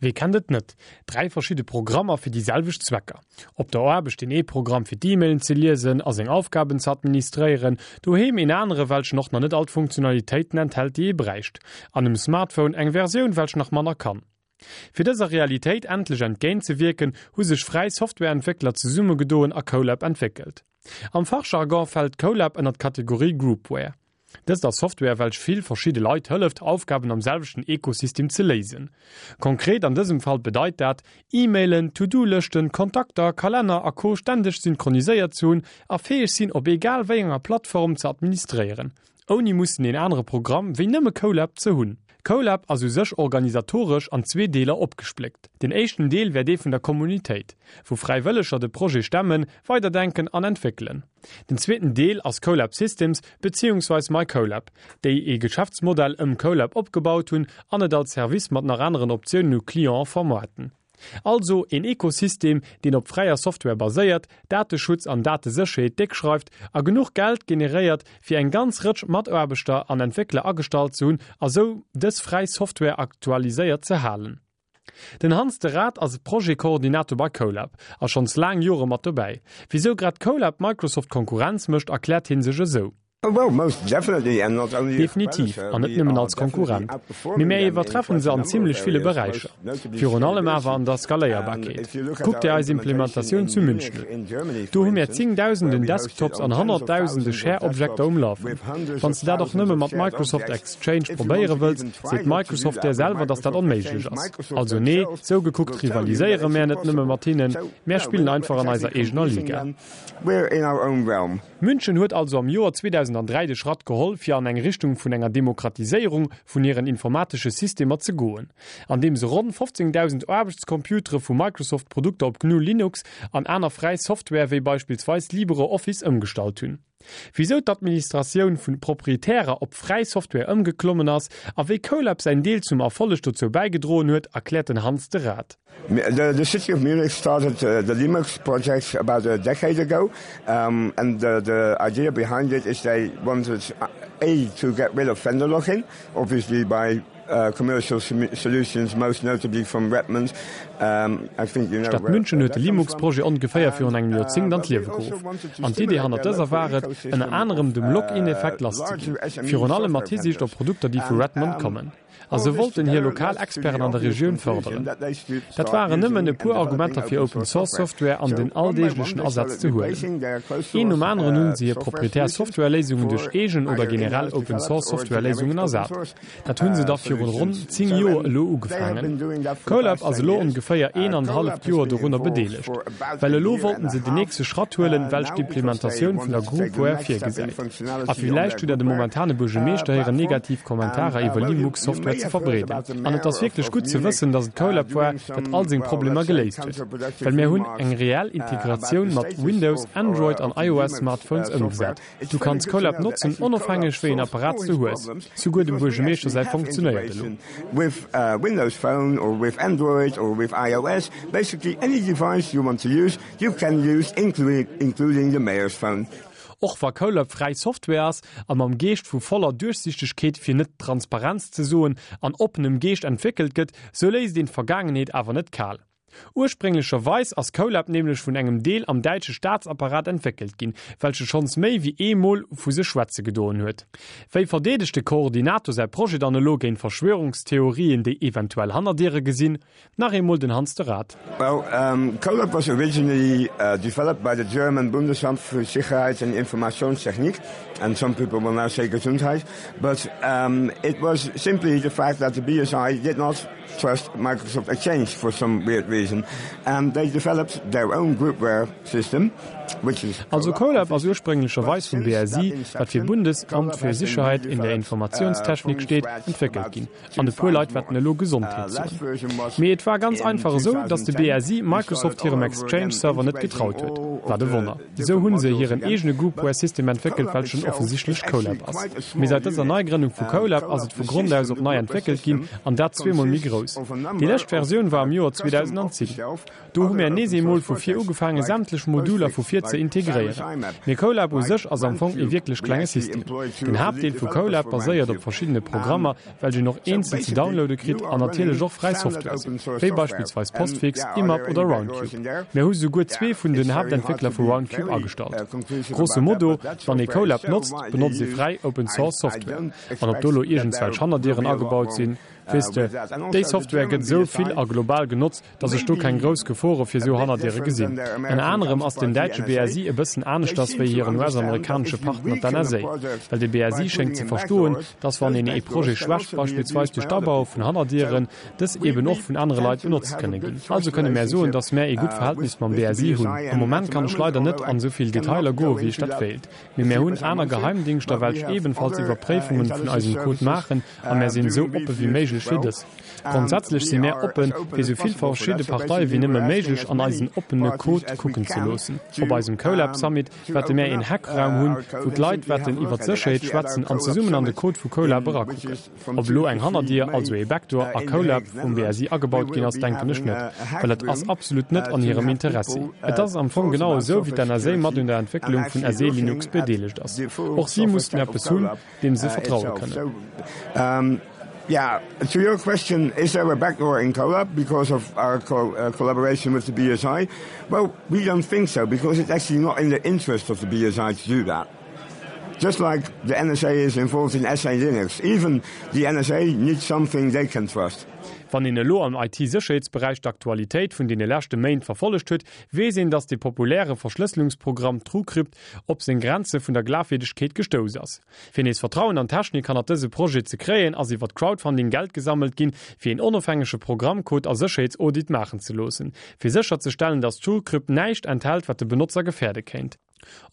Wee kennt et net? 3 verschidde Programmer fir déi selwecht Zwecker. Op der Aarbecht deen ee Programm fir d'E-Mailen ze liesen a seng Aufgaben ze administréieren, doheem een anere welchen och nach net all d'Funktionalitéiten enthält déi ee bräicht, an um Smartphone eng Versioun welch nach manner kann. Fir dëser Realitéit endlech entgéint ze wierken, hu sech fräi Softwareentwéckler zesummegedoen a Kolab entwéckelt. Am Fachjargon fält Kolab ënner d'Kategorie Groupware. Dëst ass Software welch vill verschidde Leit hëlleft Aufgaben am selwechten Ekosystem ze léisen. Konkret an dësem Fall bedeit dat, E-Mailen, To-Do-Lëschten, Kontakter, Kalenner a Co ständeg synchroniséiert ze hunn a fäeg sinn op egal wéi enger Plattform ze administréieren, ouni mussen een anere Programm wéi nëmme Kolab ze hunn. Kolab ass u sech organisatoresch an zwee Deeler opgespléckt. Den éischten Deel wär dee vun der Kommunitéit, wou Fräiwëlleger de Projet stemmen, weiderdenken an entwéckelen. Den zweeten Deel ass Kolab Systems beziehungsweis MyKolab, déi ee Geschäftsmodell ëm Kolab opgebaut hunn an et als Service mat nach aneren Optiounen u Clienten vermaarten. Also een Ekosystem, deen op fräier Software baséiert, Dateschutz an Datesécherheet déck schreift a genuch Geld generéiert, fir eng ganz Rëtsch Mataarbechter an Entwéckler agestallt ze hunn a sou dës fräi Software aktualiséiert ze halen. Den Hans de Raad ass Projet-Koordinator bei Kolab a schonns laang Jore mat dobäi. Wisou grad Kolab Microsoft Konkurrenz mécht, erkläert hie sech esou. Definitiv, an net nëmmen als Konkurrent, mee mär iwwertreffen se an zimmlech ville Beräicher. Virun allem awer an der Skaléierbarkeet. Kuck dir eis Implementatioun zu München un. Do hu mär zéngdausenden Desktops an honnertdausende Share-Objekter um Lafen. Wann s de dat och nëmme mat Microsoft Exchange probéiere wëlls, seet Microsoft där selwer, datt dat onméiglech ass. Also nee, sou gekuckt rivaliséiere mär net nëmme mat hinnen, mär spillen einfach an eiser eegener Liga. München huet also am Joer 2003 de Schratt geholl, fir an eng Richtung vun enger Demokratiséierung vun hiren informatesche Systemer ze goen, andeem se ronn 15.000 Aarbechtscomputere vu Microsoft-Produkter op GNU Linux an aner fräi Software wéi beispillsweis LibreOffice ëmgestallt hunn. Wisou d'Administratioun vun proprietärer op fräi Software ëmgeklommen ass a wéi Kolab säin Deel zum Erfolleg dozou bäigedroen huet, erkläert den Hans de Raad. The city of Munich started the Limux project about a decade ago and the idea behind it is they wanted a to get rid of vendor lock-in, obviously by commercial solutions, most notably from Redmond. I think you know D'Stad München huet de Limux-Projet ongeféier virun engem Joerzéngt an d'Liewe geruff. An d'Idee hannert dëser war et, ënner anerem dem Lock-in-Effekt lasszeginn, virun allem mat Hisiicht op Produkter, déi vu Redmond kommen. A se wollten hir lokal Experten an der Regioun fërderen. Dat waren nëmmen e puer Argumenter fir Open Source Software an den alldeeglechen Asaz ze huelen. Een nom aneren hunn se hir proprietär Software-Léisungen duerch eegen oder generell Open Source Software-Léisungen ersat. Dat hunn se da virun ronn 10 Joer elo ugefaangen. Kolab ass elo ongeféier een an halleft Joer dorunner bedeelegt. Well elo wollten se den nächste Schratt huelen, welch d'Implementatioun vun der Groupware virgesäit. A villäicht hutt der dem momentane Buergemeeschter héieren negativ Kommentarer iwwer Limux Software ze verbreeden. An et ass wierklech gutt ze wëssen, dass et Kolab war, dat all seng Problemer geléist huet. Well mär hunn eng reell Integratioun mat Windows, Android an iOS Smartphones ëmgesat. Du kanns Kolab notzen, onofhängeg wéi een Apparat s du hues. Souguer dem Buergemeeschter säi funktionéiert elo. With Windows Phone or with Android or with iOS, basically any device you want to use, you can use, including the mayor's phone. Och wa Kolab fräi Software ass a mam Geescht vu voller Duerchsichtegkeet, fir net Transparenz ze soen, an oppenem Geescht entwéckelt gëtt, sou léisst een d'Vergaangenheet awer net kal. Ursprénglecherweis ass Kolab nämlech vun engem Deel am däitsche Staatsapparat entwéckelt ginn, welche schonns méi wéi ee Mol vu sech schwätze gedoen huet. Wéi verdeedegt de Koordinator säi Projet dann elo géint Verschwörungstheorien, déi eventuell Hannerdiere gesinn? Nach eemol den Hans de Raad. Well, Kolab was originally developed by the German Bundesamt für Sicherheit and Informationstechnik, and some people will now say Gesundheit, but it was simply the fact that the BSI did not trust Microsoft Exchange for some weird reason and they developed their own groupware system which is Also Kolab ass ursprénglecherweis vum BSI, wat fir Bundesamt für Sicherheit in der Informationstechnik steet, entwéckelt ginn. An e puer Leit wäerten elo Gesondheet soen. Mee et war ganz einfach esou, datt de BSI Microsoft hirem Exchange-Server net getraut huet. Wat e Wonner! Esou hunn se hiren eegene Groupware-System entwéckelt, welchen offensichtlech Kolab ass. Mee säit dëser Neigrënnung vu Kolab ass et vu Grond aus op nei entwéckelt ginn, an dat zweemol méi grouss. Déi lescht Versioun war am Joer 2010. 2010. Do hu mär nees eemol vu vir ugefaange sämtlech Moduler vu vir ze integréieren. Mee Colab u sech ass am Fong ee wierklech klenge System. Den Haaptdeel vu Colab baséiert op verschiddene Programmer, welch een och eenzel ze downloade kritt an natierlech och fräi Software sinn, wéi beispillsweis Postfix, IMAP oder Roundcube. Mär hu souguer zwee vun den Haaptentwéckler vu Roundcube agestallt. Grosso modo, wann ee Colab notzt, benotzt ee fräi Open Source Software. An ob do lo iergendswelch Hannerdieren agebaut sinn, weess de, déi Software gëtt esou vill a global genotzt, dass ech do keng grouss Gefore fir esou Hannerdiere gesinn. Ënner anerem ass den däitsche BSI e bëssen aneschters wéi hiren US-amerikanesche Partner d'NSA. Well de BSI schéngt ze verstoen, dass wann een ee Projet schwächt, beispillsweis duerch d'Abaue vun Hannerdieren, dës eeben och vun anere Leit benotzt kënne ginn. Also kënne mär soen, dass mär ee gutt Verhältnis mam BSI hunn. Am Moment kann ech leider net an esou vill Detailer goe wéi ech dat wéilt. Mee mär hunn aner Geheimdingschter, welch ebenfalls Iwwerpréifungen vun eisem Code maachen a mär sinn esou oppe wéi méiglech fir dës. Grondsätzlech si mär oppen, fir esou vill verschidde Parteie wéi nëmme méiglech an eisen oppene Code kucken ze loossen. Op eisem CoLab Summit wäerte mär een Hackraum hunn, wou d'Leit wäerten iwwer d'Sécherheet schwätzen an zesummen an de Code vu CoLab erakucken. Ob elo eng Hannerdier, also ee Backdoor, a CoLab vum BSI agebaut ginn ass, denken ech net, well et ass absolut net an hirem Interessi. Et ass am Fong genau esou, wéi d'NSA mat un der Entwécklung vun SE Linux bedeelegt ass. Och si mussen eppes hunn, deem se vertraue kënnen. Yeah, to your question, is there a backdoor in CoLab because of our co uh, collaboration with the BSI? Well, we don't think so because it's actually not in the interest of the BSI to do that. Just like the NSA is involved in SA Linux, even the NSA needs something they can trust. Wann een elo am IT-Sécherheetsberäich d'Aktualitéit vun deene leschte Méint verfollegt huet, weess een, datt de populäre Verschlësselungsprogramm TrueCrypt op seng Grenze vun der Glafwierdegkeet gestouss ass. Fir nees Vertrauen an d'Technik hannert dëse Projet ze kréien, ass iwwert Crowdfunding Geld gesammelt ginn, fir een onofhängege Programmcode a Sécherheetsaudit maachen ze loossen, fir sécherzestellen, datt TrueCrypt näischt enthält, wat de Benotzer gefäerde kéint.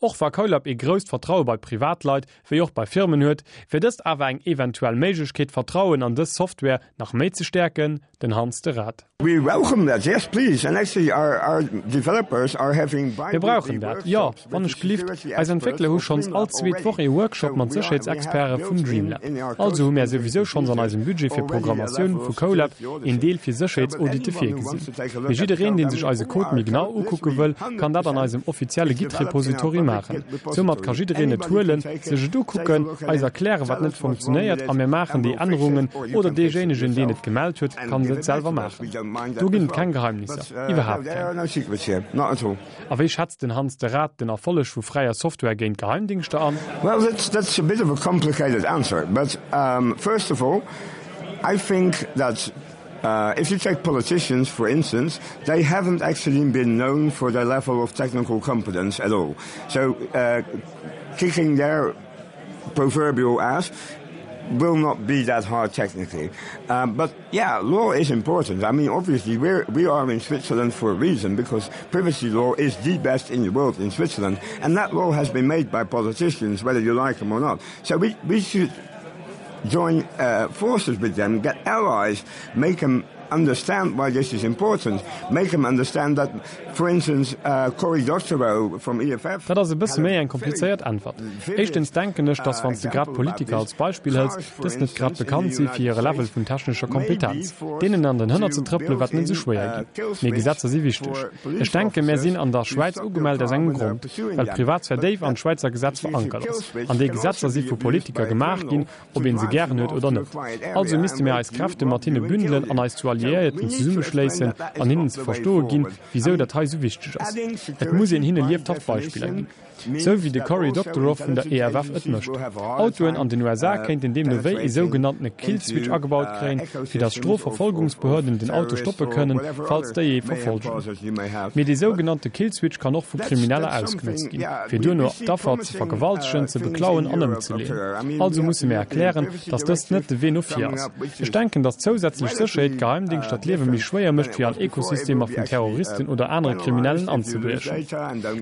Och wa Colab ee grousst Vertraue bei Privatleit wéi och bei Firmen huet, wier dëst awer eng eventuell Méiglechkeet, d'Vertrauen an dës Software nach méi ze stäerken, Den Hans de Raad. We welcome that, yes please, and actually our, our developers are having Mir brauchen dat, jo, wann ech gelift. Eis Entwéckler hu schonns all zweet Woch ee Workshop mat Sécherheetsexperte vun Dreamlab. Also hu mär souwisou schonns an eisem Budget fir Programmatioun vu CoLab een Deel fir Sécherheetsaudite virgesinn. Mee jiddereen, dee sech eise Code méi genau ukucke wëll, kann dat an eisem offizielle Git-Repository maachen. Soumat ka jiddereen et huelen, sech et ukucken, eis erklären, wat net funktionéiert a mir maachen déi Ännerungen oder deejéinegen, deen et gemellt huet, kann et selwer maachen. Do ginn et keng Geheimnisser, iwwerhaapt keng. A wéi schätzt den Hans de Raad den Erfolleg vu fräier Software géint Geheimdingschter an? Well, that's, that's a bit of a complicated answer, but um, first of all, I think that uh, if you take politicians, for instance, they haven't actually been known for their level of technical competence at all. So uh, kicking their proverbial ass will not be that hard technically. Um, but yeah, law is important. I mean, obviously, we're, we are in Switzerland for a reason because privacy law is the best in the world in Switzerland. And that law has been made by politicians, whether you like them or not. So we, we should join uh, forces with them, get allies, make them understand why this is important, make them understand that, for instance, uh, Cory Doctorow from EFF. Dat ass e bësse méi eng komplizéiert Äntwert. Éischtens denken ech, dass wann s de grad Politiker als Beispill hëls, dës net grad bekannt si fir hire Level vun technescher Kompetenz. Deenen an den Hënner ze trëppele wäert net esou schwéier ginn. Mee Gesetzer si wichteg. Ech denken, mär sinn an der Schwäiz ugemellt aus engem Grond, well d'Privatsphär déif an d'Schwäizer Gesetz verankert ass. An déi Gesetzer si vu Politiker gemaach ginn, ob een se gären huet oder net. Also misste mir eis Kräfte mat hinne bündelen an eis zu Alliéierten zesummeschléissen an hinnen ze verstoe ginn, wisou dat hei esou wichteg ass. Et muss een hinne liewthaft Beispiller ginn. Sou wéi de Cory Doctorow vun der EFF et mécht. Autoen an den USA kéinten deemno wéi ee sougenanntene Killswitch agebaut kréien, fir datt Strofverfolgungsbehörden den Auto stoppe kënnen, falls déi ee verfolgen. Mee dee sougenannte Killswitch kann och vu Krimineller ausgenotzt ginn, fir duerno d'Affer ze vergewaltegen, ze beklauen an ëmzeleeën. Also musse mir erklären, datt dëst net de Wee no vir ass. Ech denken, datt zousätzlech Sécherheet Geheimdingschter d'Liewe méi schwéier mécht, fir an Ekosystemer vun Terroristen oder anere Kriminellen anzebriechen.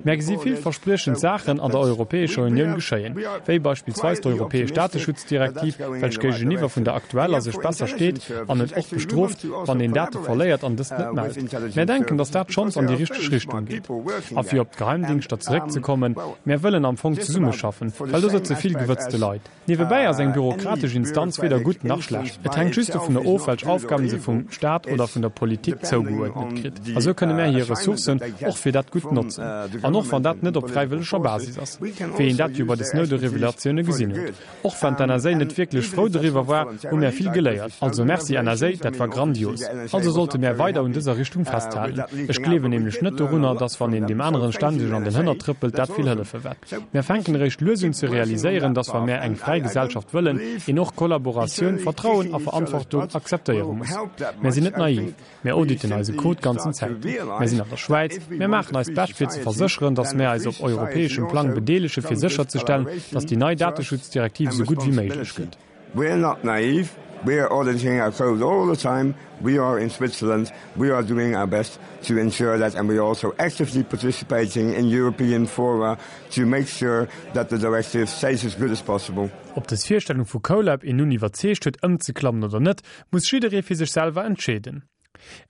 Mär gesi villverspriechend Saachen an der Europäescher Unioun geschéien, wéi beispillsweis d'europäesch Dateschutzdirektiv, welch géigeniwwer vun der aktueller sech besser steet an et och bestrooft, wann een Date verléiert an dëst net mellt. Mär denken, datt dat schonns an déi richteg Richtung geet. A fir op d'Geheimdingschter zeréckzekommen, Mär wëllen am Fong zesummeschaffen, well do sëtze vill gewëtzte Leit. Niewebäi ass eng bürokratesch Instanz weder gutt nach schlecht. Et hänkt just dovunner of, welch Aufgaben se vum. Staat oder vun der Politik zougeuerdnet kritt. A sou kënne mär hir Ressourcen och fir dat Gutt notzen. An och wann dat net op fräiwëlleger Basis ass, wéi een dat jo bei de Snowden-Revelatioune gesinn huet. Och wann d'NSA net wierklech frou doriwwer war, hu mär vill geléiert. Also Merci NSA, dat war grandios. Also sollte mär weider un dëser Richtung festhalen. Ech gleewen nämlech net dorunner, dass wann een deem aneren ständeg an den Hënner trëppelt, dat vill hëllefe wäert. Mär fänken eréischt lues un ze realiséieren, dass wa mär eng fräi Gesellschaft wëllen, een och Kollaboratioun, Vertrauen a Verantwortung akzeptéiere muss. Mär sinn net naiv. Mär auditen eise Code ganzen Zäiten. Mär sinn an der Schwäiz. Mär maachen eist Bescht fir ze versécheren, datt mär eis op europäeschem Plang bedeelege fir sécherzestellen, datt déi nei Dateschutzdirektiv esou gutt wéi méiglech gëtt. We're not naive, we are auditing our code all the time, we are in Switzerland, we are doing our best to ensure that and we are also actively participating in European fora to make sure that the directive stays as good as possible. Ob dës Virstellung vu CoLab een nun iwwerzeegt huet ëmzeklammen oder net, muss jidderee fir sech selwer entscheeden.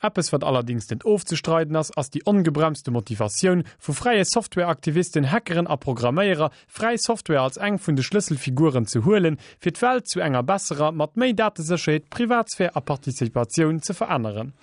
Eppes wat allerdings net ofzestreiden ass, ass déi ongebremste Motivatioun vu fräie Softwareaktivisten, Hackeren a Programméierer, fräi Software als eng vun de Schlësselfiguren ze huelen, fir d'Welt zu enger besserer, mat méi Datesécherheet, Privatsphär a Participatioun ze veränneren.